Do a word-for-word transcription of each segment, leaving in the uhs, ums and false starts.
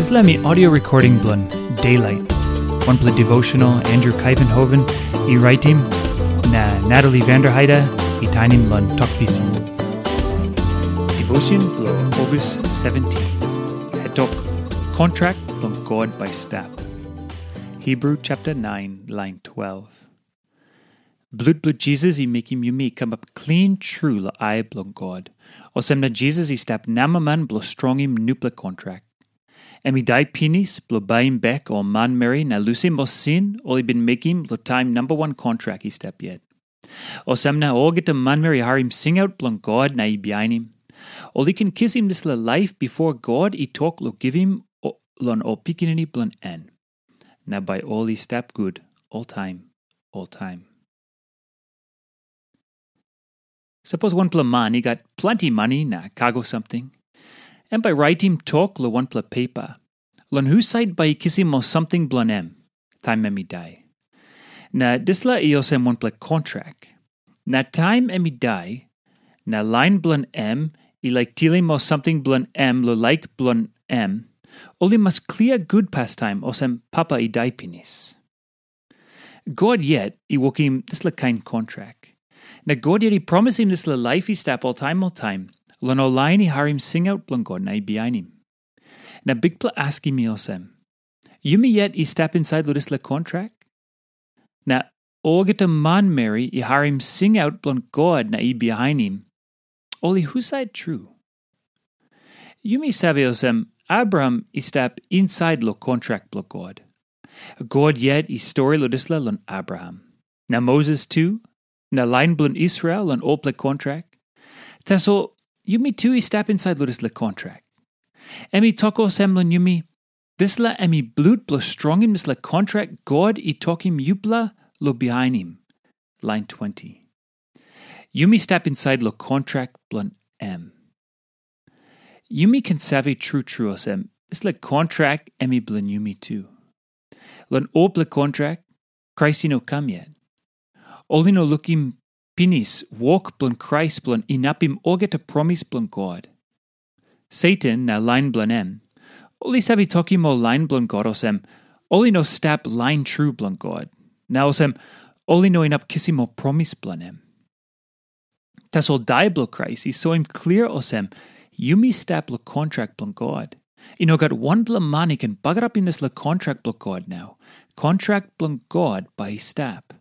Dispela mi audio recording bilong Daylight, wanpela devotional Andrew Kaivenhoven i raitim, na Natalie Vanderheide i tainim long Tok Pisin. Devotion bilong August seventeen. Hetok, kontrak bilong God bai stap. Hebrew chapter nine, line twelve. Blut bilong Jisas i mekim yumi i kamap klin tru long ai bilong God. Olsem na Jisas i stap namaman bilong strongim nupela kontrak. Em i dai pinis bilong baim bek ol manmeri na lusim ol sin ol i bin mekim long taim namba wan kontrak i stap yet. Olsem na olgeta manmeri i harim singaut bilong God na i bihainim, ol i ken kisim dispela laip bipo God i tok long givim o-, long ol pikinini bilong en. Na bai ol i stap gut oltaim, oltaim. Sapos wanpela man i gat planti mani na kago samting, em bai raitim tok long wanpela pepa, long husat bai i kisim ol samting bilong em, taim em i dai. Na dispela i olsem wanpela kontrak. Na taim em i dai, na lain bilong em i laik tilim ol samting bilong em long laik bilong em, ol i mas klia gut pastaim olsem papa i dai pinis. God yet i wokim dispela kain kontrak. Na God yet i promisim dispela laip i stap oltaim oltaim, long ol lain i harim singaut bilong God na i bihainim. Na Bikpela askim mi olsem, yumi yet i stap insait long dispela kontrak? Na olgeta manmeri i harim singaut bilong God na i bihainim, ol i husat tru? Yumi save olsem, Abraham i stap insait long kontrak bilong God. God yet i stori long dispela long Abraham. Na Moses tu, na lain bilong Israel long olpela kontrak. Tasol yumi tu i stap insait long dispela kontrak. Em i tok olsem long yumi, dispela em i blut bilong strongim dispela kontrak God i tokim yupela long bihainim. Lain twenty. Yumi stap insait long kontrak bilong em. Yumi ken save tru tru olsem, dispela kontrak em i bilong yumi tu. Long olpela kontrak, Krais i no kam yet. Ol i no lukim pinis wok bilong Krais bilong inapim olgeta promis bilong God. Satan na lain bilong em, ol i save tokim ol lain bilong God olsem, ol i no stap lain tru bilong God. Na olsem, ol i no inap kisim ol promis bilong em. Tasol dai bilong Krais i soim klia olsem, yumi stap long kontrak bilong God. I no gat wanpela man i ken bagarapim dispela kontrak bilong God nau. Kontrak bilong God bai i stap.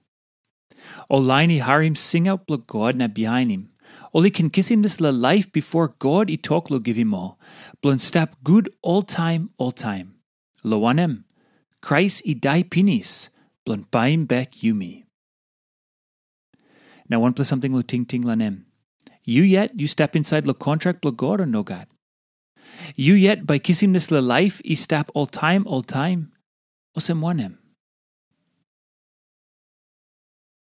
Ol lain i harim singaut bilong God na bihainim, ol i ken kisim dispela laip bipo God i tok long givim ol, bilong stap gut oltaim oltaim. Long wanem, Krais i dai pinis bilong baim bek yumi. Na wanpela samting long tingting long em. Yu yet yu stap insait long kontrak bilong God o nogat? Yu yet bai kisim dispela laip i stap oltaim oltaim? Olsem wanem?